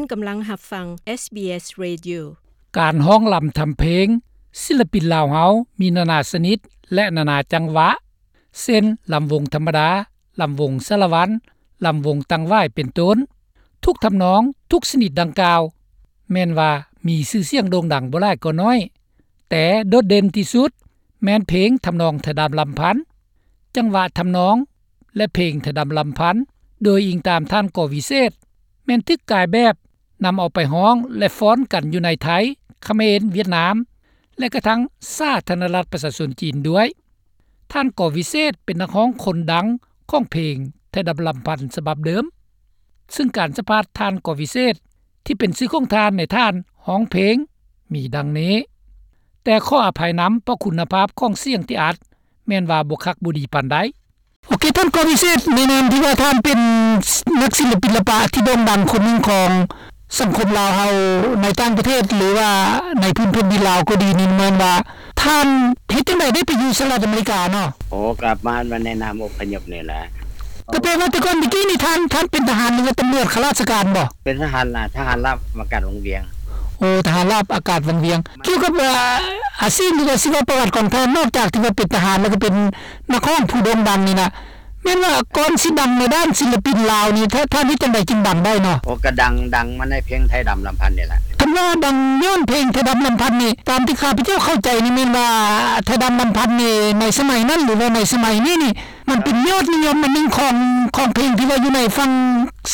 ທ່ານກຳລັງຮັບຟັງ ເອສບີເອສ Radio. ການຮ້ອງລຳທຳເພງ ສິລະປິນລາວເຮົາມີນານາຊະນິດ ແລະ ນານາຈັງຫວະ ເຊັ່ນ ລຳວົງທຳມະດາ, ລຳວົງສາລະວັນ, ລຳວົງຕັງຫວາຍ ເປັນຕົ້ນ. ທຸກທຳນອງ, ທຸກຊະນິດດັ່ງກ່າວ ແມ່ນວ່າມີຊື່ສຽງໂດ່ງດັງບໍ່ຫຼາຍກໍໜ້ອຍ, ແຕ່ໂດດເດັ່ນທີ່ສຸດແມ່ນເພງທຳນອງໄທດຳລຳພັນ. ຈັງຫວະທຳນອງ ແລະ ເພງໄທດຳລຳພັນ ໂດຍອີງຕາມທ່ານ ກໍ ວິເສດ ແມ່ນຖືກກາຍແບບນຳເອົາໄປຮ້ອງ ແລະ ຟ້ອນກັນຢູ່ໃນໄທ, ຂະເໝນ, ຫວຽດນາມ ແລະ ກະທັ່ງສາທາລະນະລັດປະຊາຊົນຈີນດ້ວຍ. ທ່ານ ກໍ ວິເສດ ເປັນນັກຮ້ອງຄົນດັງຂອງເພງໄທດຳລຳພັນສະບັບເດີມ, ເຊິ່ງການສຳພາດທ່ານ ກໍ ວິເສດ ທີ່ເປັນຊື່ຂອງທ່ານໃນທ່ານຮ້ອງເພງມີດັ່ງນີ້, ແຕ່ຂໍອະໄພນຳ ເພາະຄຸນນະພາບຂອງສຽງທີ່ອັດແມ່ນວ່າບໍ່ຄັກບໍ່ດີປານໃດ. ໂອເຄ ທ່ານ ກໍ ວິເສດ ໃນນາມທີ່ວ່າທ່ານເປັນນັກສິລະປິນລະປະທີ່ໂດ່ງດັງຄົນໜຶ່ງຂອງສັງຄົມລາວເຮົາໃນຕ່າງປະເທດ ຫຼືວ່າໃນພື້ນແຜ່ນດິນລາວກໍດີນີ້ ແມ່ນວ່າທ່ານເຮັດຈັ່ງໃດໄດ້ໄປຢູ່ສະຫະລັດອາເມລິກາເນາະ? ໂອ້ ກັບມາໃນນາມອົບພະຍົບນີ້ແຫຼະ. ກໍແປວ່າແຕ່ກ່ອນແຕ່ກີ້ນີ້ທ່ານ ທ່ານເປັນທະຫານ ຫຼືວ່າຕຳຫຼວດຂ້າລາຊະການບໍ່? ເປັນທະຫານລາ ທະຫານລາບອາກາດວັງວຽງ. ໂອ້ ທະຫານລາບອາກາດວັງວຽງ. ກ່ຽວກັບ ເອີ ອາຊີບ ຫຼືວ່າຊີວະປະຫວັດຂອງທ່ານ ນອກຈາກທີ່ວ່າເປັນທະຫານ ແລ້ວກໍເປັນນັກຮ້ອງຜູ້ໂດ່ງດັງນີ້ນະ ແມ່ນວ່າກ່ອນຊິດັງໃນດ້ານສິລະປິນລາວນີ້ ທ່ານ ທ່ານເຮັດຈັ່ງໃດຈຶ່ງດັງໄດ້ເນາະ? ໂອ້ ກໍດັງ ດັງມາໃນເພງໄທດຳລຳພັນນີ້ແຫຼະ. ຄັນວ່າດັງຍ້ອນເພງໄທດຳລຳພັນນີ້ ຕາມທີ່ຂ້າພະເຈົ້າເຂົ້າໃຈນີ້ ແມ່ນວ່າໄທດຳລຳພັນນີ້ ໃນສະໄໝນັ້ນ ຫຼືວ່າໃນສະໄໝນີ້ນີ້ ມັນເປັນຍອດນິຍົມອັນໜຶ່ງຂອງ ຂອງເພງທີ່ວ່າຢູ່ໃນຝັ່ງ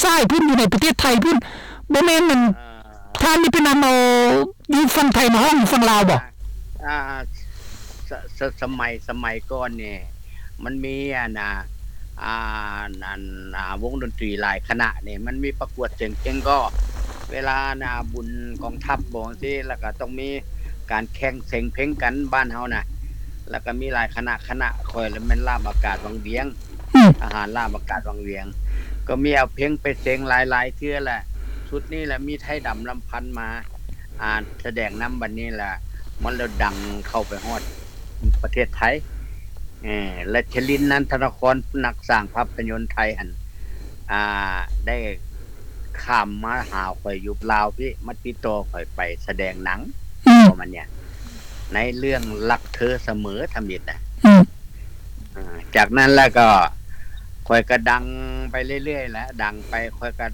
ຊ້າຍພຸ້ນ ຢູ່ໃນປະເທດໄທພຸ້ນ ບໍ່ແມ່ນ ອັນ ເອີ ທ່ານນີ້ໄປນຳເອົາຢູ່ຝັ່ງໄທມາຮ້ອງຢູ່ຝັ່ງລາວບໍ່? ອ່າ ສະ ສະ ສະໄໝ ສະໄໝກ່ອນນີ້ ມັນມີ ອັນ ອ່າ ອ່າ ອັນ ອ່າ ວົງດົນຕີຫຼາຍຄະນະນີ້ ມັນມີປະກວດສຽງເພງກໍ ເວລາ ອັນ ອ່າ ບຸນກອງທັບບໍ່ຈັ່ງຊີ້ ແລ້ວກໍຕ້ອງມີການແຂ່ງສຽງເພງກັນບ້ານເຮົານະ ແລ້ວກໍມີຫຼາຍຄະນະ ຄະນະຂ້ອຍລະແມ່ນລາບອາກາດວັງວຽງ ອືມ ທະຫານລາບອາກາດວັງວຽງ ກໍມີເອົາເພງໄປສຽງຫຼາຍໆເທື່ອແຫຼະ. ຊຸດນີ້ລະມີໄທດຳລຳພັນມາ ອ່າ ສະແດງນຳ ບັດນີ້ລະມັນລະດັງເຂົ້າໄປຮອດປະເທດໄທ ເອີ ແລະ ຊະລິນ ນັນທະນະຄອນ ນັກສ້າງພາບພະຍົນໄທຫັ້ນ ອ່າ ໄດ້ຂ້າມມາຫາຂ້ອຍຢູ່ລາວພີ້ ມາຕິດຕໍ່ຂ້ອຍໄປສະແດງໜັງ ອືມ ປະມານເນີ້ຍ ໃນເລື່ອງຮັກເທີສະເໝີທຳອິດນະ ອືມ ອ່າ ຈາກນັ້ນແລ້ວກໍຂ້ອຍກໍດັງໄປເລື້ອຍໆແຫຼະ ດັງໄປ ຂ້ອຍກໍ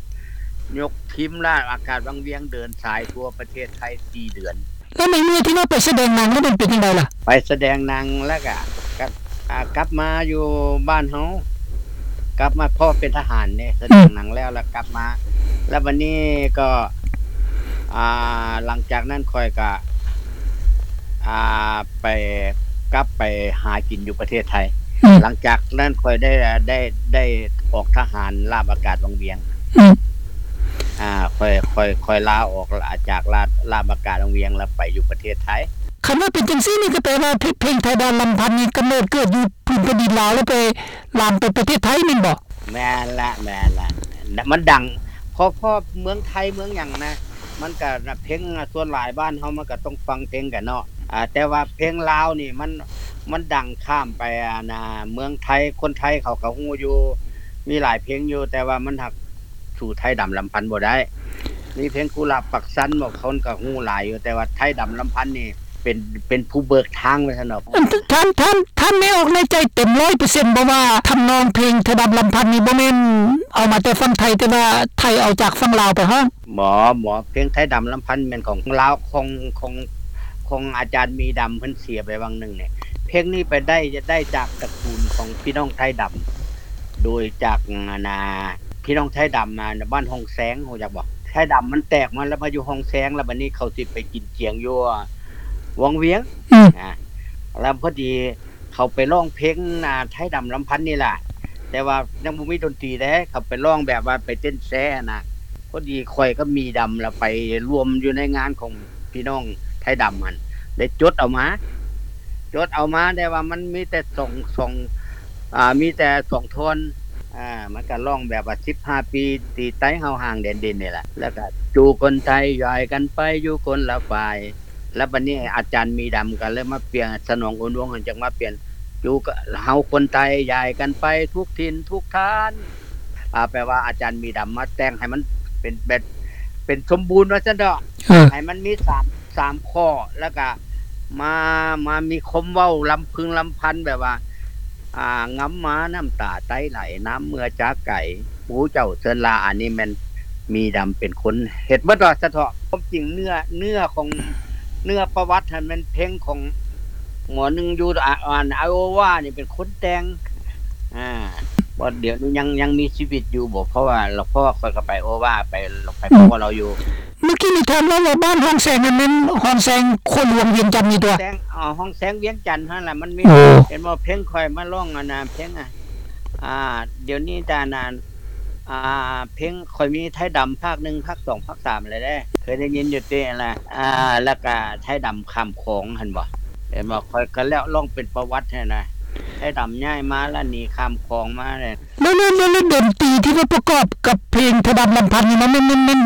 ຍົກທີມລາບອາກາດວັງວຽງເດີນສາຍທົ່ວປະເທດໄທສີ່ເດືອນ. ແລ້ວໃນເມື່ອທີ່ວ່າໄປສະແດງໜັງແລ້ວມັນເປັນຈັ່ງໃດລະ? ໄປສະແດງໜັງແລ້ວກໍ ກໍ ອ່າ ກັບມາຢູ່ບ້ານເຮົາ ກັບມາ ເພາະເປັນທະຫານເດ້ ສະແດງໜັງແລ້ວ ແລ້ວກັບມາ ແລ້ວບັດນີ້ກໍ ອ່າ ຫຼັງຈາກນັ້ນຂ້ອຍກໍ ອ່າ ໄປ ກັບໄປຫາກິນຢູ່ປະເທດໄທ ອືມ ຫຼັງຈາກນັ້ນຂ້ອຍໄດ້ ໄດ້ ໄດ້ອອກທະຫານລາບອາກາດວັງວຽງ ອືມ ອ່າ ຂ້ອຍ ຂ້ອຍ ຂ້ອຍລາອອກຈາກລາ ລາບອາກາດວັງວຽງ ແລ້ວໄປຢູ່ປະເທດໄທ. ຄັນວ່າເປັນຈັ່ງຊີ້ນີ້ ກໍແປວ່າເພ ເພງໄທດຳລຳພັນນີ້ກຳເນີດເກີດຢູ່ພື້ນແຜ່ນດິນລາວ ແລ້ວໄປລາມໄປປະເທດໄທແມ່ນບໍ່? ແມ່ນລະ ແມ່ນລະ ມັນດັງ ເພາະ ເພາະເມືອງໄທເມືອງຫຍັງນະ ມັນກະ ເພງ ສ່ວນຫຼາຍບ້ານເຮົາມັນກະຕ້ອງຟັງເພງກັນເນາະ ອາ ແຕ່ວ່າເພງລາວນີ້ມັນ ມັນດັງຂ້າມໄປ ອັນ ເມືອງໄທ ຄົນໄທເຂົາກະຮູ້ຢູ່ ມີຫຼາຍເພງຢູ່ ແຕ່ວ່າມັນຫາກສູ້ໄທດຳລຳພັນບໍ່ໄດ້ ມີເພງກຸຫຼາບປາກຊັນ ບາງຄົນກະຮູ້ຫຼາຍຢູ່ ແຕ່ວ່າໄທດຳລຳພັນນີ້ ເປັນ ເປັນຜູ້ເບີກທາງວ່າຊັ້ນເນາະ. ອັນ ທ່ານ ທ່ານ ທ່ານແມ່ອອກໃນໃຈເຕັມຮ້ອຍເປີເຊັນບໍ່ວ່າທຳນອງເພງໄທດຳລຳພັນນີ້ບໍ່ແມ່ນເອົາມາແຕ່ຝັ່ງໄທ ແຕ່ວ່າໄທເອົາຈາກຝັ່ງລາວໄປຮ້ອງ? ບໍ່ ບໍ່ ເພງໄທດຳລຳພັນແມ່ນຂອງລາວ ຂອງ ຂອງ ຂອງອາຈານມີດຳ ເພິ່ນເສຍໄປຫວ່າງໜຶ່ງນີ້. ເພງນີ້ໄປໄດ້ ໄດ້ຈາກຕະກູນຂອງພີ່ນ້ອງໄທດຳ ໂດຍຈາກ ອັນ ນາ ພີ່ນ້ອງໄທດຳ ອາ ບ້ານຮ່ອງແຊງ ຮູ້ຈັກບໍ່? ໄທດຳມັນແຕກມາແລ້ວມາຢູ່ຮ່ອງແຊງ ແລ້ວບັດນີ້ເຂົາຊິໄປກິນຈຽງຢູ່ ວັງວຽງ ອືມ ອາ ແລ້ວພໍດີເຂົາໄປຮ້ອງເພງ ອາ ໄທດຳລຳພັນນີ້ລະ ແຕ່ວ່າຍັງບໍ່ມີດົນຕີເດ້ ເຂົາໄປຮ້ອງແບບວ່າໄປເຕັ້ນແຊຫັ້ນນະ ພໍດີຂ້ອຍກັບມີດຳລະໄປລວມຢູ່ໃນງານຂອງພີ່ນ້ອງໄທດຳຫັ້ນ ໄດ້ຈົດເອົາມາ ຈົດເອົາມາ ແຕ່ວ່າມັນມີແຕ່ສອງ ສອງ ອາ ມີແຕ່ສອງທ່ອນ ອາ ມັນກະຮ້ອງແບບວ່າສິບຫ້າປີ ທີ່ໄຕ້ເຮົາຫ່າງແດນດິນນີ້ແຫຼະ ແລ້ວກະ ຈູ່ຄົນໄທຍ້າຍກັນໄປຢູ່ຄົນລະຝ່າຍ ແລ້ວບັດນີ້ອາຈານມີດຳກະເລີຍມາປ່ຽນ ສະໜອງ ໂອນວົງ ຈັ່ງມາປ່ຽນ ຈູ່ເຮົາຄົນໄທຍ້າຍກັນໄປທຸກຖິ່ນທຸກຖານ ອາ ແປວ່າອາຈານມີດຳມາແຕ່ງໃຫ້ມັນເປັນແບບ ເປັນສົມບູນວ່າຊັ້ນເຖາະ ເອີ ໃຫ້ມັນມີສາມ ສາມຂໍ້ ແລ້ວກະມາ ມາມີຄວາມເວົ້າລຳພຶງລຳພັນແບບວ່າ ອ່າ ງຳມານ້ຳຕາໄຕໄຫຼ ນ້ຳເມື່ອຈາກໄກ ໂອ້ ເຈົ້າເຊີນລາ ອັນນີ້ແມ່ນມີດຳເປັນຄົນເຮັດໝົດວ່າຊັ້ນເຖາະ. ຄວາມຈິງເນື້ອ ເນື້ອຂອງ ເນື້ອປະຫວັດຫັ້ນແມ່ນເພງຂອງໝໍໜຶ່ງຢູ່ ອາ ອັນ ໄອໂອວານີ້ເປັນຄົນແຕ່ງ ອ່າ ບໍ່ ດຽວນີ້ຍັງ ຍັງມີຊີວິດຢູ່ບໍ່? ເພາະວ່າ ເພາະວ່າຂ້ອຍກໍໄປໂອວາ ໄປ ໄປພໍ້ລາວຢູ່. ເມື່ອກີ້ນີ້ທ່ານເວົ້າວ່າບ້ານຮ່ອງແສງນັ້ນແມ່ນຮ່ອງແສງຂົວຫຼວງວຽງຈັນນີ້ຕົວະ? ແສງ ອໍ ຮ່ອງແສງວຽງຈັນຫັ້ນລະ ມັນມີ ໂອ້ ເຫັນບໍ່ ເພງຂ້ອຍມາຮ້ອງ ອັນນ່າ ເພງ ອ່າ ອ່າ ດຽວນີ້ຕານານ ອ່າ ເພງຂ້ອຍມີໄທດຳພາກໜຶ່ງ ພາກສອງ ພາກສາມແລ້ວເດ້ ເຄີຍໄດ້ຍິນຢູ່ຕິລະ? ອ່າ ແລ້ວກະໄທດຳຂ້າມຂອງຫັ້ນບໍ່ ເຫັນບໍ່? ຂ້ອຍກະແລ້ວ ຮ້ອງເປັນປະຫວັດຫັ້ນນະ ໄທດຳຍ້າຍມາລະ ໜີຂ້າມຂອງມາເລີຍ. ແລ້ວ ແລ້ວ ແລ້ວດົນຕີທີ່ວ່າປະກອບກັບເພງໄທດຳລຳພັນນີ້ນະ ແມ່ນ ແມ່ນ ແມ່ນ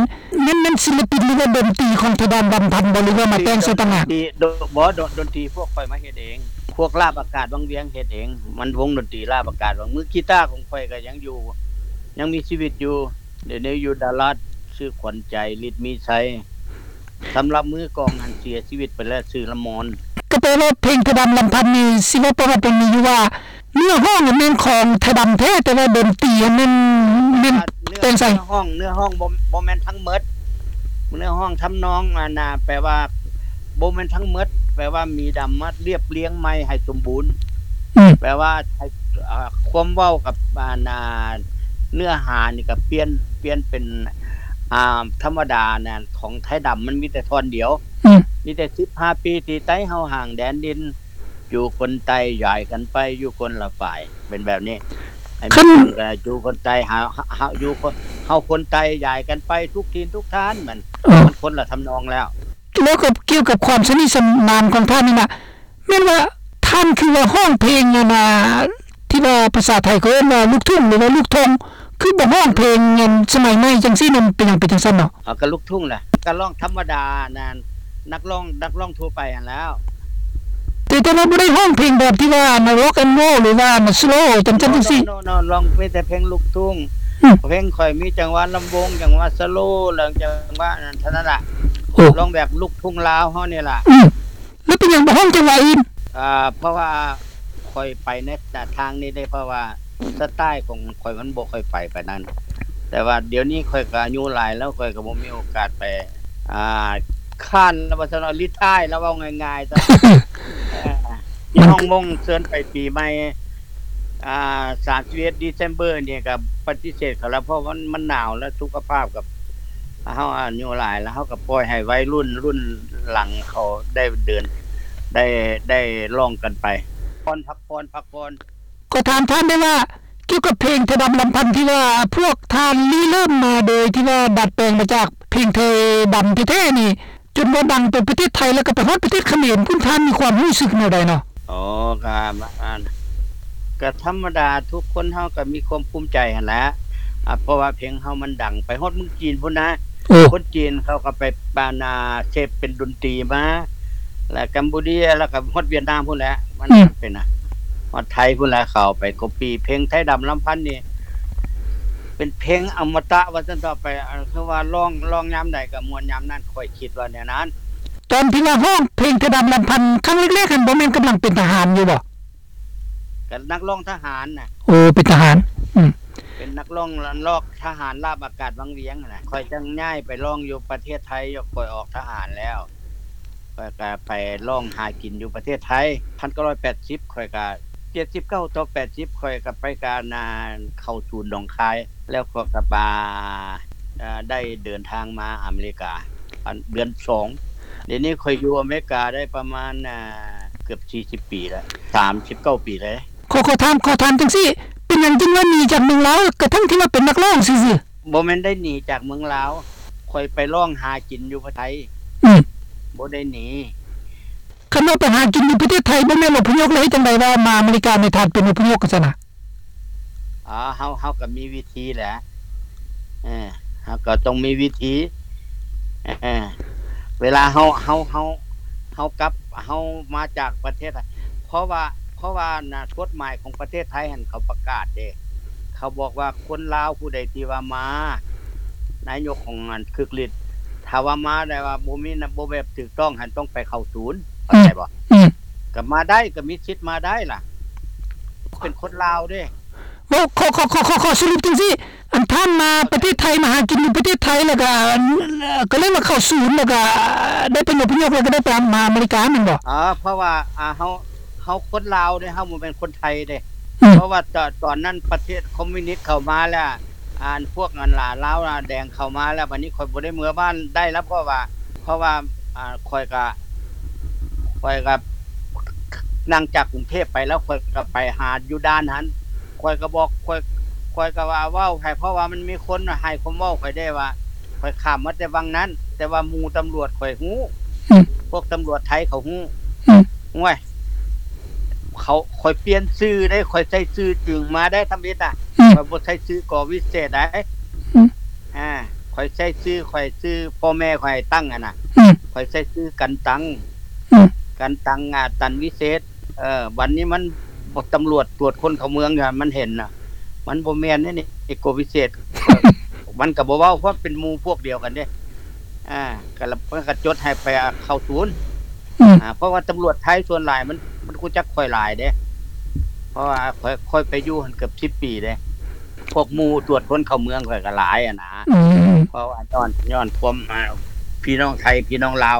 ແມ່ນ ແມ່ນສິນລະປິນ ຫຼືວ່າດົນຕີຂອງໄທດຳລຳພັນບໍ່ ຫຼືວ່າມາແຕ່ງໃສ່ຕ່າງຫາກ? ດ- ບໍ່ ດົນຕີພວກຂ້ອຍມາເຮັດເອງ ພວກລາບອາກາດວັງວຽງເຮັດເອງ ມັນວົງດົນຕີລາບອາກາດວັງ ມືກີຕາຂອງຂ້ອຍກໍຍັງຢູ່ ຍັງມີຊີວິດຢູ່ ດຽວນີ້ຢູ່ດາລັດ ຊື່ຂວັນໃຈ ລິດມີໄຊ. ສຳລັບມືກອງຫັ້ນເສຍຊີວິດໄປແລ້ວ ຊື່ລະມອນ. ກໍແປວ່າເພງໄທດຳລຳພັນນີ້ ຊິເວົ້າປະຫວັດມັນມີຢູ່ວ່າ ເນື້ອຮ້ອງຫັ້ນແມ່ນຂອງໄທດຳແທ້ ແຕ່ວ່າດົນຕີຫັ້ນແມ່ນ ແມ່ນແຕ່ງໃສ່. ເນື້ອຮ້ອງ ເນື້ອຮ້ອງບໍ່ ບໍ່ແມ່ນທັງໝົດ ເນື້ອຮ້ອງທຳນອງ ອັນນ່າ ແປວ່າບໍ່ແມ່ນທັງໝົດ ແປວ່າມີດຳມາລຽບລຽງໃໝ່ໃຫ້ສົມບູນ ອືມ ແປວ່າໃຫ້ ອ່າ ຄວາມເວົ້າກັບ ອັນນ່າ ເນື້ອຫານີ້ກໍປ່ຽນ ປ່ຽນເປັນ ອ່າ ທຳມະດານະ ຂອງໄທດຳມັນມີແຕ່ທ່ອນດຽວ ອືມ ມີແຕ່ສິບຫ້າປີທີ່ໄຕເຮົາຫ່າງແດນດິນ ຢູ່ຄົນໃຕ້ຍ້າຍກັນໄປຢູ່ຄົນລະຝ່າຍ ເປັນແບບນີ້. ໃຫ້ມີຫຍັງກໍຢູ່ຄົນໃຕ້ ເຮົາ ເຮົາ ເຮົາຢູ່ຄົນ ເຮົາຄົນໃຕ້ຍ້າຍກັນໄປທຸກຖິ່ນທຸກຖານ ມັນ ເອີ ມັນຄົນລະທຳນອງແລ້ວ. ແລ້ວກໍກ່ຽວກັບຄວາມສະໜິດສະໜານຂອງທ່ານນີ້ນະ ແມ່ນວ່າທ່ານຄືວ່າຮ້ອງເພງ ອັນນ່າ ທີ່ວ່າພາສາໄທເຂົາເອີ້ນວ່າລູກທຸ່ງ ຫຼືວ່າລູກທົ່ງ ຄືບໍ່ຮ້ອງເພງອັນສະໄໝໃໝ່ຈັ່ງຊີ້ນັ້ນ ເປັນຫຍັງເປັນຈັ່ງຊັ້ນເນາະ? ເອົາ ກໍລູກທຸ່ງແຫຼະ ກໍຮ້ອງທຳມະດາ ອັນນັ້ນ ນັກຮ້ອງ ນັກຮ້ອງທົ່ວໄປຫັ້ນແລ້ວ ແຕ່ ແຕ່ວ່າບໍ່ໄດ້ຮ້ອງເພງແບບທີ່ວ່າອັນ rock and roll ຫຼືວ່າອັນ slow ຈັ່ງຊັ້ນຈັ່ງຊີ້. No, no, no, no, ຮ້ອງມີແຕ່ເພງລູກທຸ່ງ ອືມ ເພງຂ້ອຍມີຈັງຫວະລຳວົງ ຈັງຫວະ slow ແລ້ວ ຈັງຫວະອັນນັ້ນ ເທົ່ານັ້ນລະ. ໂອ້ ຮ້ອງແບບລູກທຸ່ງລາວເຮົານີ້ລະ. ອືມ ແລ້ວເປັນຫຍັງບໍ່ຮ້ອງຈັງຫວະອື່ນ? ອ່າ ເພາະວ່າຂ້ອຍໄປໃນທາງນີ້ເດ້ ເພາະວ່າສະໄຕຂອງຂ້ອຍມັນບໍ່ຄ່ອຍໄປປານນັ້ນ ແຕ່ວ່າດຽວນີ້ຂ້ອຍກໍອາຍຸຫຼາຍແລ້ວ ຂ້ອຍກໍບໍ່ມີໂອກາດໄປ ອ່າ ຄ້ານລະວ່າຊັ້ນເນາະ retire ລະເວົ້າງ່າຍໆຊະ ເອີ ມີຫ້ອງມົ້ງເຊີນໄປປີໃໝ່ ອ່າ ສາມສິບເອັດ December ນີ້ກໍປະຕິເສດເຂົາລະ ເພາະມັນ ມັນໜາວ ແລະ ສຸຂະພາບກັບ ເຮົາອາຍຸຫຼາຍແລ້ວ ເຮົາກໍປ່ອຍໃຫ້ໄວລຸ້ນ ລຸ້ນຫຼັງເຂົາໄດ້ເດີນ ໄດ້ ໄດ້ຮ້ອງກັນໄປ ຜ່ອນ ພັກຜ່ອນ ພັກຜ່ອນ. ຂໍຖາມທ່ານໄດ້ວ່າ ກ່ຽວກັບເພງໄທດຳລຳພັນທີ່ວ່າພວກທ່ານລິເລີ່ມມາໂດຍທີ່ວ່າດັດແປງມາຈາກເພງໄທດຳແທ້ໆນີ້ ຈົນວ່າດັງໄປປະເທດໄທ ແລ້ວກໍໄປຮອດປະເທດຂະເໝນພຸ້ນ ທ່ານມີຄວາມຮູ້ສຶກແນວໃດເນາະ? ອໍ ກໍ ກໍທຳມະດາ ທຸກຄົນເຮົາກໍມີຄວາມພູມໃຈຫັ້ນແຫຼະ ອາ ເພາະວ່າເພງເຮົາມັນດັງໄປຮອດເມືອງຈີນພຸ້ນນະ. ໂອ້ ຄົນຈີນເຂົາກໍໄປ ປານາ ເສບເປັນດົນຕີມາ ແລ້ວກຳປູເຈຍ ແລ້ວກໍຮອດຫວຽດນາມພຸ້ນແຫຼະ ມັນ ອືມ ເປັນນະ ຮອດໄທພຸ້ນແຫຼະ ເຂົາໄປ copy ເພງໄທດຳລຳພັນນີ້ ເປັນເພງອະມະຕະວ່າຊັ້ນເຖາະ ໄປ ຄືວ່າຮ້ອງ ຮ້ອງຍາມໃດກໍມ່ວນຍາມນັ້ນ ຂ້ອຍຄິດວ່າແນວນັ້ນ. ຕອນທີ່ວ່າຮ້ອງເພງໄທດຳລຳພັນຄັ້ງແລກໆຫັ້ນ ບໍ່ແມ່ນກຳລັງເປັນທະຫານຢູ່ບໍ່? ກໍນັກຮ້ອງທະຫານນະ. ໂອ້ ເປັນທະຫານ ອືມ ເປັນນັກຮ້ອງລອກທະຫານລາບອາກາດວັງວຽງຫັ້ນນະ ຂ້ອຍຈັ່ງຍ້າຍໄປຮ້ອງຢູ່ປະເທດໄທ ຂ້ອຍອອກທະຫານແລ້ວ ຂ້ອຍກໍໄປຮ້ອງຫາກິນຢູ່ປະເທດໄທ ພັນເກົ້າຮ້ອຍແປດສິບ ຂ້ອຍກໍ ເຈັດສິບເກົ້າຕໍ່ແປດສິບ ຂ້ອຍກໍໄປການ ອ່າ ເຂົ້າສູນໜອງຄາຍ ແລ້ວຂ້ອຍກໍມາ ອ່າ ໄດ້ເດີນທາງມາອາເມລິກາ ອັນ ເດືອນສອງ ດຽວນີ້ຂ້ອຍຢູ່ອາເມລິກາໄດ້ປະມານ ອ່າ ເກືອບສີ່ສິບປີແລ້ວ ສາມສິບເກົ້າປີແລ້ວ. ຂໍ ຂໍຖາມ ຂໍຖາມຈັ່ງຊີ້ ເປັນຫຍັງຈຶ່ງວ່າໜີຈາກເມືອງລາວ ກະທັ່ງທີ່ວ່າເປັນນັກຮ້ອງຊື່ໆ? ບໍ່ແມ່ນໄດ້ໜີຈາກເມືອງລາວ ຂ້ອຍໄປຮ້ອງຫາກິນຢູ່ປະເທດໄທ ອືມ ບໍ່ໄດ້ໜີ. ຄັນວ່າໄປຫາກິນຢູ່ປະເທດໄທ ບໍ່ແມ່ນອົບພະຍົບ ແລ້ວເຮັດຈັ່ງໃດວ່າມາອາເມລິການີ້ ທ່ານເປັນອົບພະຍົບຊັ້ນນະ? ອໍ ເຮົາ ເຮົາກໍມີວິທີແຫຼະ ເອີ ເຮົາກໍຕ້ອງມີວິທີ ເອີ ເວລາເຮົາ ເຮົາ ເຮົາ ເຮົາກັບ ເຮົາມາຈາກປະເທດ ເພາະວ່າ ເພາະວ່ານະ ກົດໝາຍຂອງປະເທດໄທຫັ້ນ ເຂົາປະກາດເດ້ ເຂົາບອກວ່າຄົນລາວຜູ້ໃດທີ່ວ່າມາ ນາຍົກຂອງອັນຄຶກລິດ ຖ້າວ່າມາແຕ່ວ່າບໍ່ມີ ບໍ່ແບບຖືກຕ້ອງຫັ້ນ ຕ້ອງໄປເຂົ້າສູນ ເຂົ້າໃຈບໍ່? ອືມ ອືມ ກໍມາໄດ້ ກໍມີສິດມາໄດ້ລະ ເປັນຄົນລາວເດ້. ເວົ້າ ຂໍ ຂໍ ຂໍ ຂໍ ຂໍສະຫຼຸບຈັ່ງຊີ້ ອັນທ່ານມາປະເທດໄທ ມາຫາກິນຢູ່ປະເທດໄທ ແລ້ວກໍ ກໍເລີຍມາເຂົ້າສູນ ແລ້ວກໍໄດ້ໄປອົບພະຍົບ ແລ້ວກໍໄດ້ໄປມາອາເມລິກາແມ່ນບໍ່? ເອີ ເພາະວ່າ ອ່າ ເຮົາ ເຮົາຄົນລາວເດ້ ເຮົາບໍ່ແມ່ນຄົນໄທເດ້. ອືມ ເພາະວ່າຕອນ ຕອນນັ້ນປະເທດຄອມມິວນິດເຂົ້າມາແລ້ວ ອັນພວກອັນລາ ລາວແດງເຂົ້າມາແລ້ວ ບັດນີ້ຂ້ອຍບໍ່ໄດ້ເມືອບ້ານໄດ້ແລ້ວ ເພາະວ່າ ເພາະວ່າ ອ່າ ຂ້ອຍກະ ຂ້ອຍກະ ນັ່ງຈາກກຸງເທບໄປແລ້ວ ຂ້ອຍກະໄປຫາຢູ່ດ່ານຫັ້ນ ຂ້ອຍກະບອກ ຂ້ອຍ ຂ້ອຍກະວ່າເວົ້າໃຫ້ ເພາະວ່າມັນມີຄົນໃຫ້ຄວາມເວົ້າຂ້ອຍເດ້ວ່າ ຂ້ອຍຂ້າມມາແຕ່ວັງນັ້ນ ແຕ່ວ່າໝູ່ຕຳຫຼວດຂ້ອຍຮູ້ ອືມ ພວກຕຳຫຼວດໄທເຂົາຮູ້ ອືມ ໂອ້ຍ ເຂົາ ຂ້ອຍປ່ຽນຊື່ເດ້ ຂ້ອຍໃຊ້ຊື່ຈິງມາໄດ້ທຳອິດນະ ອືມ ຂ້ອຍບໍ່ໃຊ້ຊື່ ກ.ວິເສດ ໃດ ອືມ ອ່າ ຂ້ອຍໃຊ້ຊື່ ຂ້ອຍຊື່ພໍ່ແມ່ຂ້ອຍຕັ້ງຫັ້ນນະ ອືມ ຂ້ອຍໃຊ້ຊື່ກັນຕັງ ອືມ ກັນຕັງ ອາ ຕັນວິເສດ ເອີ ບັດນີ້ມັນ ຕຳຫຼວດຕວດຄົນເຂົ້າເມືອງຢູ່ຫັ້ນ ມັນເຫັນນະ ມັນບໍ່ແມ່ນເດ້ນີ້ ກ.ວິເສດ ມັນກໍບໍ່ເວົ້າ ເພາະເປັນໝູ່ພວກດຽວກັນເດ້ ອ່າ ກໍລະ ມັນກໍຈົດໃຫ້ໄປເຂົ້າສູນ ອືມ ອ່າ ເພາະວ່າຕຳຫຼວດໄທສ່ວນຫຼາຍມັນ ມັນຮູ້ຈັກຂ້ອຍຫຼາຍເດ້ ເພາະວ່າຂ້ອຍ ຂ້ອຍໄປຢູ່ຫັ້ນເກືອບສິບປີເດ້ ພວກໝູ່ຕວດຄົນເຂົ້າເມືອງຂ້ອຍກໍຫຼາຍຫັ້ນນະ ອືມ ເພາະວ່າຍ້ອນ ຍ້ອນຄວາມ ອ່າ ພີ່ນ້ອງໄທ ພີ່ນ້ອງລາວ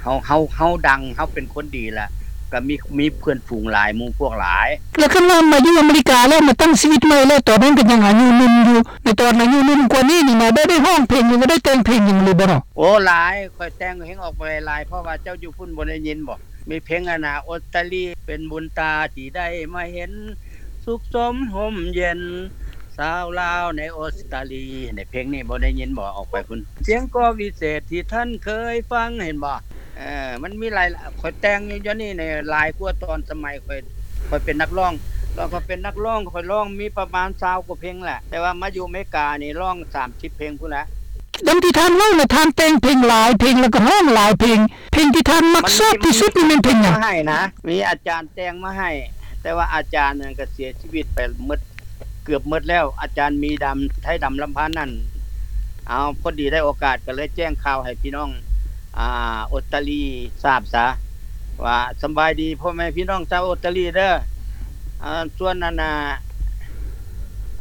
ເຮົາ ເຮົາ ເຮົາດັງ ເຮົາເປັນຄົນດີລະ ກໍມີ ມີເພື່ອນຝູງຫຼາຍ ໝູ່ພວກຫຼາຍ. ແລ້ວຄັນວ່າມາຢູ່ອາເມລິກາແລ້ວ ມາຕັ້ງຊີວິດໃໝ່ແລ້ວ ຕອນນັ້ນກໍຍັງອາຍຸໜຸ່ມຢູ່ ໃນຕອນອາຍຸໜຸ່ມກວ່ານີ້ນີ້ນະ ໄດ້ ໄດ້ຮ້ອງເພງ ຫຼືວ່າໄດ້ແຕ່ງເພງຫຍັງຫຼືບໍ່ເນາະ? ໂອ້ ຫຼາຍ ຂ້ອຍແຕ່ງເພງອອກໄປຫຼາຍ ເພາະວ່າເຈົ້າຢູ່ພຸ້ນບໍ່ໄດ້ຍິນບໍ່? ມີເພງອັນນ່າ ອົດຕາລີ ເປັນບຸນຕາທີ່ໄດ້ມາເຫັນ ສຸກສົມຮົ່ມເຢັນ ຊາວລາວໃນອົດຕາລີ ໃນເພງນີ້ບໍ່ໄດ້ຍິນບໍ່? ອອກໄປພຸ້ນ ສຽງ ກ.ວິເສດ ທີ່ທ່ານເຄີຍຟັງ ເຫັນບໍ່? ເອີ ມັນມີຫຼາຍ ຂ້ອຍແຕ່ງຢູ່ ດຽວນີ້ນີ້ຫຼາຍກວ່າຕອນສະໄໝຂ້ອຍ ຂ້ອຍເປັນນັກຮ້ອງ ຕອນຂ້ອຍເປັນນັກຮ້ອງ ຂ້ອຍຮ້ອງມີປະມານຊາວກວ່າເພງແຫຼະ ແຕ່ວ່າມາຢູ່ອາເມລິການີ້ຮ້ອງສາມສິບເພງພຸ້ນແຫຼະ. ດັ່ງທີ່ທ່ານເວົ້ານະ ທ່ານແຕ່ງເພງຫຼາຍເພງ ແລ້ວກໍຮ້ອງຫຼາຍເພງ ເພງທີ່ທ່ານມັກຊອບທີ່ສຸດນີ້ແມ່ນເພງຫຍັງ? ມັນມີ ມັນມີຄົນແຕ່ງມາໃຫ້ນະ ມີອາຈານແຕ່ງມາໃຫ້ ແຕ່ວ່າອາຈານນັ້ນກໍເສຍຊີວິດໄປໝົດ ເກືອບໝົດແລ້ວ ອາຈານມີດຳ ໄທດຳລຳພັນນັ້ນ. ເອົາ ພໍດີໄດ້ໂອກາດກໍເລີຍແຈ້ງຂ່າວໃຫ້ພີ່ນ້ອງ ອ່າ ອົດຕາລີຊາບຊະ ວ່າສຳບາຍດີພໍ່ແມ່ພີ່ນ້ອງຊາວອົດຕາລີເດີ. ອ່າ ສ່ວນອັນນ່າ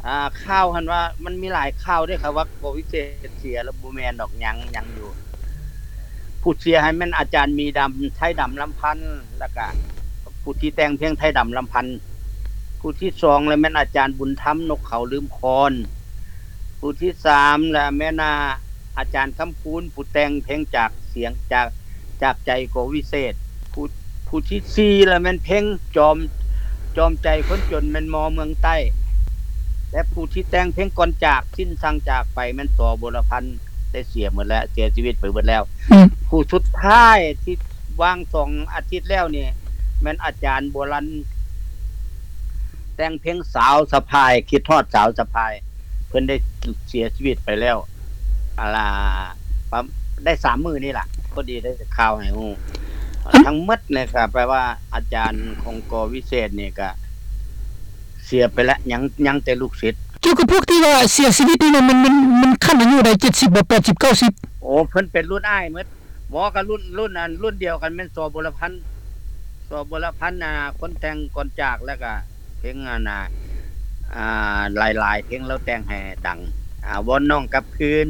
ອ່າ ຂ່າວຫັ້ນວ່າ ມັນມີຫຼາຍຂ່າວເດ້ ເຂົາວ່າ ກ.ວິເສດ ເສຍແລ້ວ ບໍ່ແມ່ນດອກ ຍັງ ຍັງຢູ່. ຜູ້ເສຍຫັ້ນແມ່ນອາຈານມີດຳ ໄທດຳລຳພັນ ແລ້ວກະຜູ້ທີ່ແຕ່ງເພງໄທດຳລຳພັນ. ຜູ້ທີສອງລະແມ່ນອາຈານບຸນທຳ ນົກເຂົາລືມຄອນ. ຜູ້ທີສາມລະແມ່ນ ອາ ອາຈານຄຳຄູນ ຜູ້ແຕ່ງເພງຈາກສຽງ ຈາກ ຈາກໃຈ ກ.ວິເສດ. ຜູ້ ຜູ້ທີສີ່ລະແມ່ນເພງຈອມ ຈອມໃຈຄົນຈົນ ແມ່ນມໍ່ເມືອງໃຕ້ ແລະ ຜູ້ທີ່ແຕ່ງເພງກ່ອນຈາກ ສິ້ນສັງຈາກໄປ ແມ່ນ ສ.ບົວລະພັນ ໄດ້ເສຍໝົດແລ້ວ ເສຍຊີວິດໄປເບິດແລ້ວ. ອືມ ຜູ້ສຸດທ້າຍທີ່ວ່າງສອງອາທິດແລ້ວນີ້ ແມ່ນອາຈານບົວລັນ ແຕ່ງເພງສາວສະພາຍ ຄິດຮອດສາວສະພາຍ ເພິ່ນໄດ້ເສຍຊີວິດໄປແລ້ວ ອາ ລະ ປະ ໄດ້ສາມມື້ນີ້ລະ ພໍດີໄດ້ຂ່າວໃຫ້ຮູ້. ອືມ ທັງໝົດນີ້ກະແປວ່າອາຈານຂອງ ກ.ວິເສດ ນີ້ກະເສຍໄປແລ້ວ ຍັງ ຍັງແຕ່ລູກສິດ. ກ່ຽວກັບພວກທີ່ວ່າເສຍຊີວິດນີ້ນະ ມັນ ມັນ ມັນຂັ້ນອາຍຸໃດ ເຈັດສິບບໍ່ ແປດສິບ ເກົ້າສິບ? ໂອ້ ເພິ່ນເປັນລຸ້ນອ້າຍໝົດ. ບໍ່ ກໍລຸ້ນ ລຸ້ນອັນ ລຸ້ນດຽວກັນແມ່ນ ສ.ບົວລະພັນ ສ.ບົວລະພັນ ອ່າ ຄົນແຕ່ງກ່ອນຈາກ ແລ້ວກະເພງອັນນ່າ ອ່າ ຫຼາຍໆເພງລາວແຕ່ງໃຫ້ດັງ ອ່າ ວອນນ້ອງກັບຄືນ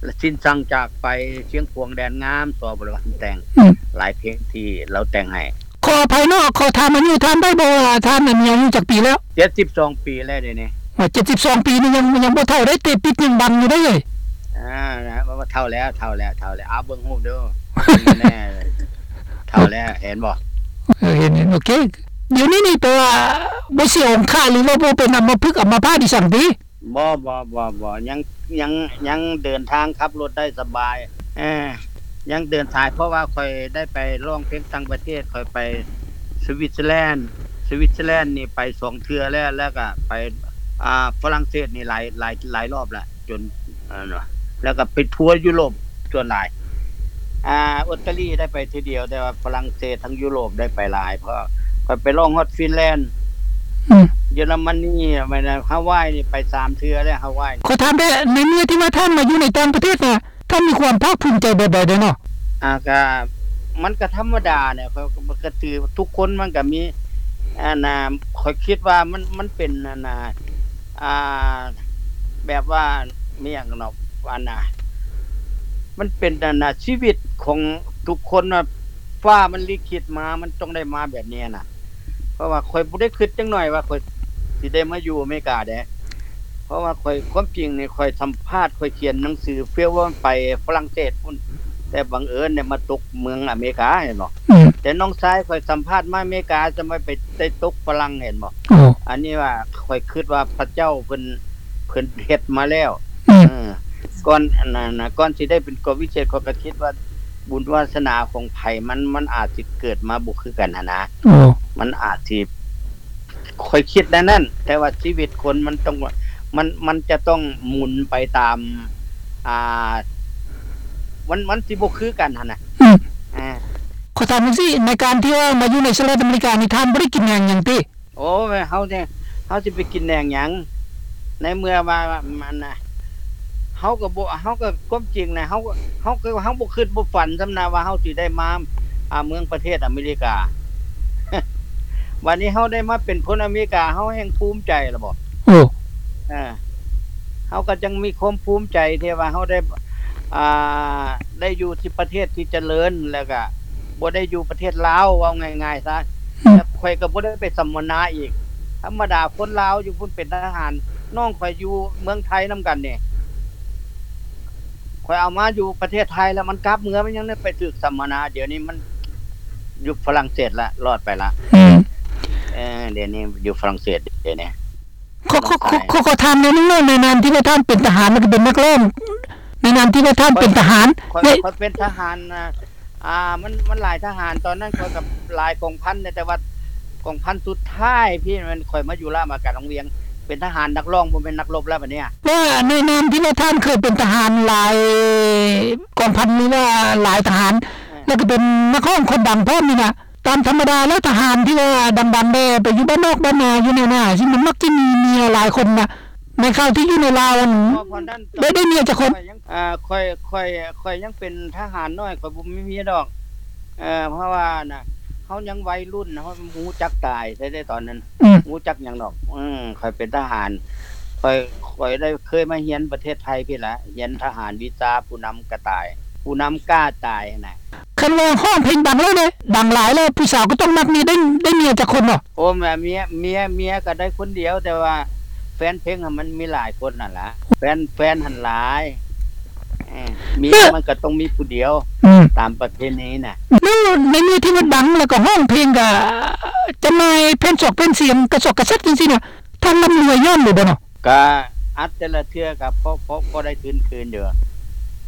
ແລະ ສິ້ນສັງຈາກໄປ ຊຽງຂວາງແດນງາມ ສ.ບົວລະພັນແຕ່ງ ອືມ ຫຼາຍເພງທີ່ລາວແຕ່ງໃຫ້. ຂໍອະໄພເນາະ ຂໍຖາມອາຍຸທ່ານໄດ້ບໍ່ວ່າທ່ານນັ້ນມີອາຍຸຈັກປີແລ້ວ? ເຈັດສິບສອງປີແລ້ວດຽວນີ້. ວ່າເຈັດສິບສອງປີນີ້ຍັງ ຍັງບໍ່ເຖົ້າໄດ້ ເຕະປິດຍັງບັງຢູ່ເດ້. ອ່າ ເຖົ້າແລ້ວ ເຖົ້າແລ້ວ ເຖົ້າແລ້ວ ເອົາເບິ່ງຮູບດູ ເຖົ້າແລ້ວ ເຫັນບໍ່? ເອີ ເຫັນ ເຫັນ ໂອເຄ. ດຽວນີ້ນີ້ແປວ່າບໍ່ເສຍອົງຄະ ຫຼືວ່າບໍ່ເປັນອຳມະພຶກອຳມະພາດອີ່ສັງຕິ? ບໍ່ ບໍ່ ບໍ່ ບໍ່ ຍັງ ຍັງ ຍັງເດີນທາງຂັບລົດໄດ້ສະບາຍ ເອີ ຍັງເດີນສາຍ ເພາະວ່າຂ້ອຍໄດ້ໄປຮ້ອງເພງຕ່າງປະເທດ ຂ້ອຍໄປສະວິດເຊີແລນ ສະວິດເຊີແລນນີ້ໄປສອງເທື່ອແລ້ວ ແລ້ວກະໄປ ອ່າ ຝຣັ່ງເສດນີ້ຫຼາຍ ຫຼາຍ ຫຼາຍລອບແລ້ວ ຈົນ ແລ້ວກະໄປທົວຢູໂຣບສ່ວນຫຼາຍ. ອ່າ ອົດຕາລີໄດ້ໄປເທື່ອດຽວ ແຕ່ວ່າຝຣັ່ງເສດທັງຢູໂຣບໄດ້ໄປຫຼາຍ ເພາະຂ້ອຍໄປຮ້ອງຮອດຟິນແລນ ອືມ ເຢຍລະມະນີ ແມ່ນ ຮາວາຍນີ້ໄປສາມເທື່ອແລ້ວ ຮາວາຍ. ຂໍຖາມແດ່ ໃນເມື່ອທີ່ວ່າທ່ານມາຢູ່ໃນຕ່າງປະເທດນະ ທ່ານມີຄວາມພາກພູມໃຈແບບໃດແດ່ເນາະ? ອ່າ ກະ ມັນກະທຳມະດາແຫຼະ ເພາະ ເພາະກະຖືກ ທຸກຄົນມັນກະມີ ອັນນ່າ ຂ້ອຍຄິດວ່າມັນ ມັນເປັນ ອັນນ່າ ອ່າ ແບບວ່າ ມີຫຍັງເນາະ ອັນນ່າ ມັນເປັນ ອັນນ່າ ຊີວິດຂອງທຸກຄົນວ່າ ຟ້າມັນລິຂິດມາ ມັນຕ້ອງໄດ້ມາແບບນີ້ນະ. ເພາະວ່າຂ້ອຍບໍ່ໄດ້ຄິດຈັກໜ້ອຍວ່າຂ້ອຍຊິໄດ້ມາຢູ່ອາເມລິກາເດ້ ເພາະວ່າຂ້ອຍ ຄວາມຈິງນີ້ ຂ້ອຍສຳພາດ ຂ້ອຍຂຽນໜັງສື ເຟວໄປຝຣັ່ງເສດພຸ້ນ ແຕ່ບັງເອີນໄດ້ມາຕົກເມືອງອາເມລິກາ ເຫັນບໍ່? ອືມ ແຕ່ນ້ອງຊາຍຂ້ອຍສຳພາດມາອາເມລິກາ ຈະມາໄປໄດ້ຕົກຝຣັ່ງ ເຫັນບໍ່? ໂອ້ ອັນນີ້ວ່າຂ້ອຍຄິດວ່າພະເຈົ້າເພິ່ນ ເພິ່ນເຮັດມາແລ້ວ ອືມ ເອີ ກ່ອນ ອັນນັ້ນນະ ກ່ອນຊິໄດ້ເປັນກອງວິເສດ ຂ້ອຍກໍຄິດວ່າບຸນວາສະໜາຂອງໃຜ ມັນ ມັນອາດຊິເກີດມາບໍ່ຄືກັນຫັ້ນນະ ໂອ້ ມັນອາດຊິ ຂ້ອຍຄິດແນວນັ້ນ ແຕ່ວ່າຊີວິດຄົນມັນຕ້ອງ ມັນ ມັນຈະຕ້ອງໝູນໄປຕາມ ອ່າ ມັນ ມັນຊິບໍ່ຄືກັນຫັ້ນນະ ອືມ ອ່າ ຂໍຖາມຈັ່ງຊີ້ ໃນການທີ່ວ່າມາຢູ່ໃນສະຫະລັດອາເມລິການີ້ ທ່ານບໍ່ໄດ້ກິນແນວຫຍັງຕິ? ໂອ້ຍ ເຮົານີ້ ເຮົາຊິໄປກິນແນວຫຍັງ ໃນເມື່ອວ່າ ອັນນ່າ ເຮົາກໍບໍ່ ເຮົາກໍ ຄວາມຈິງນະ ເຮົາ ເຮົາກໍ ເຮົາບໍ່ຄິດບໍ່ຝັນຊ້ຳນະວ່າເຮົາຊິໄດ້ມາ ອ່າ ເມືອງປະເທດອາເມລິກາ ບາດນີ້ເຮົາໄດ້ມາເປັນຄົນອາເມລິກາ ເຮົາແຮ່ງພູມໃຈລະບໍ? ໂອ້ ເອີ ເຮົາກໍຈັ່ງມີຄວາມພູມໃຈທີ່ວ່າເຮົາໄດ້ ອ່າ ໄດ້ຢູ່ທີ່ປະເທດທີ່ຈະເລີນ ແລ້ວກະບໍ່ໄດ້ຢູ່ປະເທດລາວ ເວົ້າງ່າຍໆຊະ ອືມ ແລ້ວຂ້ອຍກໍບໍ່ໄດ້ໄປສຳມະນາອີກ. ທຳມະດາຄົນລາວຢູ່ພຸ້ນເປັນທະຫານ ນ້ອງຂ້ອຍຢູ່ເມືອງໄທນຳກັນນີ້ ຂ້ອຍເອົາມາຢູ່ປະເທດໄທແລ້ວມັນກັບເມືອ ມັນຍັງໄດ້ໄປຖືກສຳມະນາ ດຽວນີ້ມັນຢູ່ຝຣັ່ງເສດລະ ລອດໄປລະ ອືມ ເອີ ດຽວນີ້ຢູ່ຝຣັ່ງເສດ ດຽວນີ້ ຂໍ ຂໍ ຂໍ ຂໍ ຂໍຖາມແນວໜຶ່ງເນາະ ໃນນາມທີ່ວ່າທ່ານເປັນທະຫານ ແລ້ວກໍເປັນນັກຮ້ອງ ໃນນາມທີ່ວ່າທ່ານເປັນທະຫານ ຂ້ອຍ ຂ້ອຍເປັນທະຫານ ອ່າ ມັນ ມັນຫຼາຍທະຫານ ຕອນນັ້ນຂ້ອຍກໍຫຼາຍກອງພັນ ແຕ່ວ່າກອງພັນສຸດທ້າຍພີ້ແມ່ນຂ້ອຍມາຢູ່ລະມາການວັງວຽງ ເປັນທະຫານນັກຮ້ອງ ບໍ່ແມ່ນນັກລົບແລ້ວບາດນີ້. ວ່າໃນນາມທີ່ວ່າທ່ານເຄີຍເປັນທະຫານຫຼາຍກອງພັນ ຫຼືວ່າຫຼາຍທະຫານ ເອີ ແລ້ວກໍເປັນນັກຮ້ອງຄົນດັງພ້ອມນີ້ນະ ຕາມທຳມະດາແລ້ວທະຫານທີ່ວ່າດັງໆແດ່ ໄປຢູ່ບ້ານນອກບ້ານນາ ຢູ່ໃນນາ ຊິມັນມັກຈະມີເມຍຫຼາຍຄົນນະ. ໃນຂ່າວທີ່ຢູ່ໃນລາວຫັ້ນ ໄດ້ ໄດ້ເມຍຈັກຄົນ? ຂ້ອຍຍັງ ອ່າ ຂ້ອຍ ຂ້ອຍ ຂ້ອຍຍັງເປັນທະຫານນ້ອຍ ຂ້ອຍບໍ່ມີເມຍດອກ ເອີ ເພາະວ່ານະ ເຮົາຍັງໄວລຸ້ນ ເຮົາບໍ່ຮູ້ຈັກຕາຍໃດໆຕອນນັ້ນ ອືມ ຮູ້ຈັກຫຍັງດອກ ເອີ ຂ້ອຍເປັນທະຫານ ຂ້ອຍ ຂ້ອຍໄດ້ເຄີຍມາຮຽນປະເທດໄທພີ້ລະ ຮຽນທະຫານວິຊາຜູ້ນຳກະຕ່າຍ ຜູ້ນຳກ້າຕາຍຫັ້ນນະ. ຄັນວ່າຮ້ອງເພງດັງແລ້ວເດ້ ດັງຫຼາຍແລ້ວ ຜູ້ສາວກໍຕ້ອງມັກເມຍ ໄດ້ ໄດ້ເມຍຈັກຄົນເນາະ? ໂອ້ ເມຍ ເມຍ ເມຍກໍໄດ້ຄົນດຽວ ແຕ່ວ່າແຟນເພງຫັ້ນມັນມີຫຼາຍຄົນຫັ້ນລະ ແຟນ ແຟນຫັ້ນຫຼາຍ ເອີ ເມຍ ເອີ ມັນກໍຕ້ອງມີຜູ້ດຽວ ອືມ ຕາມປະເພນີນະ. ແລ້ວໃນເມື່ອທີ່ວ່າດັງ ແລ້ວກໍຮ້ອງເພງ ກໍຈຳໜ່າຍແຜ່ນສອກແຜ່ນສຽງ ກະຊອກກະແຊກຈັ່ງຊີ້ນະ ທ່ານລ່ຳລວຍຍ້ອນຫຼືບໍ່ເນາະ? ກະອັດແຕ່ລະເທື່ອກະພໍ ພໍ ພໍໄດ້ທຶນຄືນຢູ່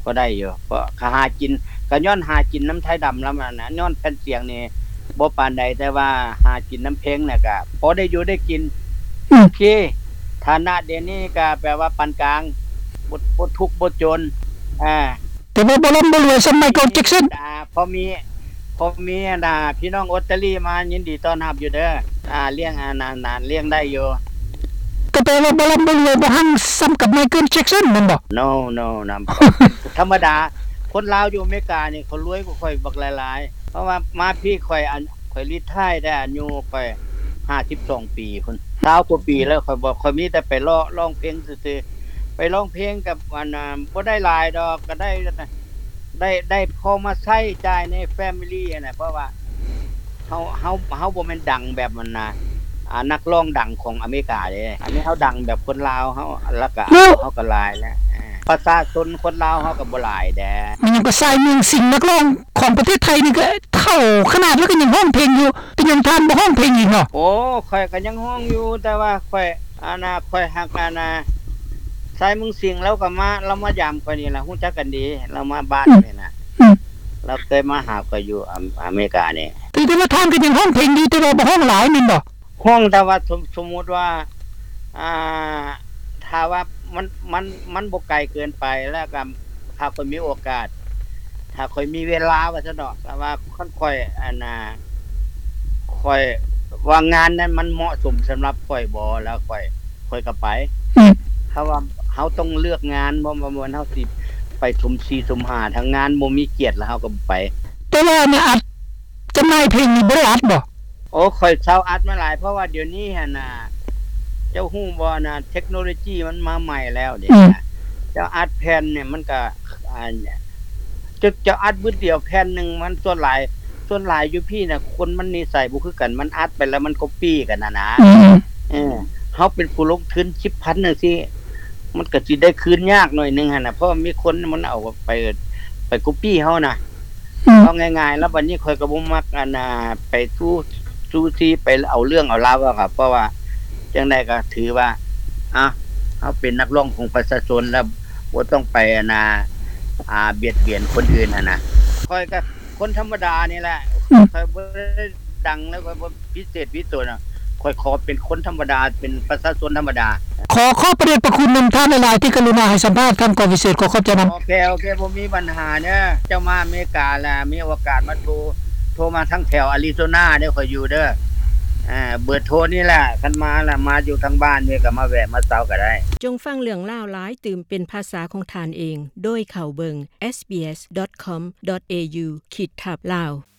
ພໍໄດ້ຢູ່ ເພາະກະຫາກິນ ກະຍ້ອນຫາກິນນຳໄທດຳລຳນັ້ນນະ ຍ້ອນແຜ່ນສຽງນີ້ບໍ່ປານໃດ ແຕ່ວ່າຫາກິນນຳເພງນະກະພໍໄດ້ຢູ່ໄດ້ກິນ ອືມ ໂອເຄ ຖານະດຽວນີ້ກະແປວ່າປານກາງ ບໍ່ ບໍ່ທຸກບໍ່ຈົນ ອາ ແຕ່ວ່າບໍ່ລ່ຳບໍ່ລວຍສ່ຳໄມເຄິນ ແຈັກສັນ ອ່າ ພໍມີ ພໍມີ ອັນນ່າ ພີ່ນ້ອງອົດຕາລີມາ ຍິນດີຕ້ອນຮັບຢູ່ເດີ ອ່າ ລ້ຽງ ອັນນັ້ນ ລ້ຽງໄດ້ຢູ່. ກໍແປວ່າບໍ່ລ່ຳບໍ່ລວຍ ບໍ່ຮັ່ງສ່ຳກັບໄມເຄິນ ແຈັກສັນ ແມ່ນບໍ່? ໂນ ໂນ ນຳ ທຳມະດາ ຄົນລາວຢູ່ອາເມລິການີ້ ເຂົາລວຍກວ່າຂ້ອຍບັກຫຼາຍໆ ເພາະວ່າມາພີ້ຂ້ອຍ ອັນ ຂ້ອຍຣີທາຍໄດ້ອາຍຸຂ້ອຍຫ້າສິບສອງປີພຸ້ນ ຊາວກວ່າປີແລ້ວ ຂ້ອຍບໍ່ ຂ້ອຍມີແຕ່ໄປເລາະຮ້ອງເພງຊື່ໆ ໄປຮ້ອງເພງກັບ ອັນ ບໍ່ໄດ້ຫຼາຍດອກ ກໍໄດ້ ໄດ້ ໄດ້ພໍມາໃຊ້ຈ່າຍໃນແຟມິລີຫັ້ນນະ ເພາະວ່າເຮົາ ເຮົາ ເຮົາບໍ່ແມ່ນດັງແບບ ອັນນ່າ ອ່າ ນັກຮ້ອງດັງຂອງອາເມລິກາເດ້ ອັນນີ້ເຮົາດັງແບບຄົນລາວເຮົາ ແລ້ວກະ ເນາະ ເຮົາກໍຫຼາຍແລ້ວ ເອີ ປະຊາຊົນຄົນລາວເຮົາກໍບໍ່ຫຼາຍແດ່. ແມ່ນຫຍັງກໍຊາຍເມືອງສິງ ນັກຮ້ອງຂອງປະເທດໄທນີ້ກໍເຖົ້າຂະໜາດແລ້ວກໍຍັງຮ້ອງເພງຢູ່ ເປັນຫຍັງທ່ານບໍ່ຮ້ອງເພງອີກເນາະ? ໂອ້ ຂ້ອຍກໍຍັງຮ້ອງຢູ່ ແຕ່ວ່າຂ້ອຍ ອັນນ່າ ຂ້ອຍຮັກ ອັນນ່າ ຊາຍເມືອງສິງ ລາວກໍມາ ລາວມາຢາມຂ້ອຍນີ້ລະ ຮູ້ຈັກກັນດີ ລາວມາບ້ານ ອືມ ນີ້ນະ ອືມ ລາວເຄີຍມາຫາຂ້ອຍຢູ່ອາ ອາເມລິການີ້. ຖື ຖືວ່າທ່ານກໍຍັງຮ້ອງເພງຢູ່ ແຕ່ວ່າບໍ່ຮ້ອງຫຼາຍແມ່ນບໍ່? ຮ້ອງ ແຕ່ວ່າສົມ ສົມມຸດວ່າ ອ່າ ຖ້າວ່າມັນ ມັນ ມັນບໍ່ໄກເກີນໄປ ແລ້ວກໍຖ້າຂ້ອຍມີໂອກາດ ຖ້າຂ້ອຍມີເວລາວ່າຊັ້ນເນາະ ແຕ່ວ່າຄັນຂ້ອຍ ອັນນ່າ ຂ້ອຍວ່າງານນັ້ນມັນເໝາະສົມສຳລັບຂ້ອຍບໍ່ ແລ້ວຂ້ອຍ ຂ້ອຍກໍໄປ ອືມ ຖ້າວ່າເຮົາຕ້ອງເລືອກງານ ບໍ່ ບໍ່ແມ່ນເຮົາຊິໄປ ປຊຸມສີ່ຊຸມຫ້າ ທາງງານບໍ່ມີກຽດ ແລ້ວເຮົາກໍບໍ່ໄປ. ແຕ່ວ່າອັນອັດ ຈຳໜ່າຍເພງນີ້ບໍ່ໄດ້ອັດບໍ່? ໂອ້ ຂ້ອຍເຊົາອັດມາຫຼາຍ ເພາະວ່າດຽວນີ້ຫັ້ນນະ ເຈົ້າຮູ້ບໍ່ນະ ເທັກໂນໂລຊີມັນມາໃໝ່ແລ້ວເດ ອືມ ເຈົ້າອັດແຜ່ນນີ້ມັນກໍ ອ່າ ເຈົ້າ ເຈົ້າອັດບຶດດຽວແຜ່ນໜຶ່ງ ມັນສ່ວນຫຼາຍ ສ່ວນຫຼາຍຢູ່ພີ້ນະ ຄົນມັນນິໄສບໍ່ຄືກັນ ມັນອັດໄປແລ້ວມັນກັອບປີ້ກັນຫັ້ນນະ ອືມ ເອີ ເຮົາເປັນຜູ້ລົງທຶນສິບພັນຈັ່ງຊີ້ ມັນກໍຊິໄດ້ຄືນຍາກໜ້ອຍໜຶ່ງຫັ້ນນະ ເພາະມີຄົນມັນເອົາໄປ ໄປກັອບປີ້ເຮົານະ ອືມ ເວົ້າງ່າຍໆ ແລ້ວບັດນີ້ຂ້ອຍກໍບໍ່ມັກ ອັນນ່າ ໄປຊູ່ ຊູ່ຊີໄປເອົາເລື່ອງເອົາລາວ ເພາະວ່າຈັ່ງໃດກໍຖືວ່າ ອ່າ ເຮົາເປັນນັກຮ້ອງຂອງປະຊາຊົນ ແລ້ວບໍ່ຕ້ອງໄປ ອັນນ່າ ອ່າ ບຽດບຽນຄົນອື່ນຫັ້ນນະ ຂ້ອຍກໍຄົນທຳມະດານີ້ແຫຼະ ອືມ ຂ້ອຍບໍ່ໄດ້ດັງ ແລ້ວຂ້ອຍບໍ່ພິເສດພິໂສນ ຂ້ອຍຂໍເປັນຄົນທຳມະດາ ເປັນປະຊາຊົນທຳມະດາ. ຂໍຂອບພະເດດພະຄຸນນຳທ່ານຫຼາຍໆ ທີ່ກະລຸນາໃຫ້ສຳພາດທາງກອງພິເສດ ຂໍຂອບໃຈນຳ. ໂອເຄ ໂອເຄ ບໍ່ມີບັນຫາເດີ ເຈົ້າມາອາເມລິກາລະ ມີໂອກາດມາໂທ ໂທມາທາງແຖວອາຣິໂຊນາເດີ ຂ້ອຍຢູ່ເດີ ເບີໂທນີ້ລະ ຄັນມາລະ ມາຢູ່ທາງບ້ານນີ້ກໍມາແວະມາເຊົາກໍໄດ້. ຈົ່ງຟັງເລື່ອງລາວຫຼາຍຕື່ມເປັນພາສາຂອງທ່ານເອງ ໂດຍເຂົ້າເບິ່ງ SBS.com.au ຂີດທັບ Lao.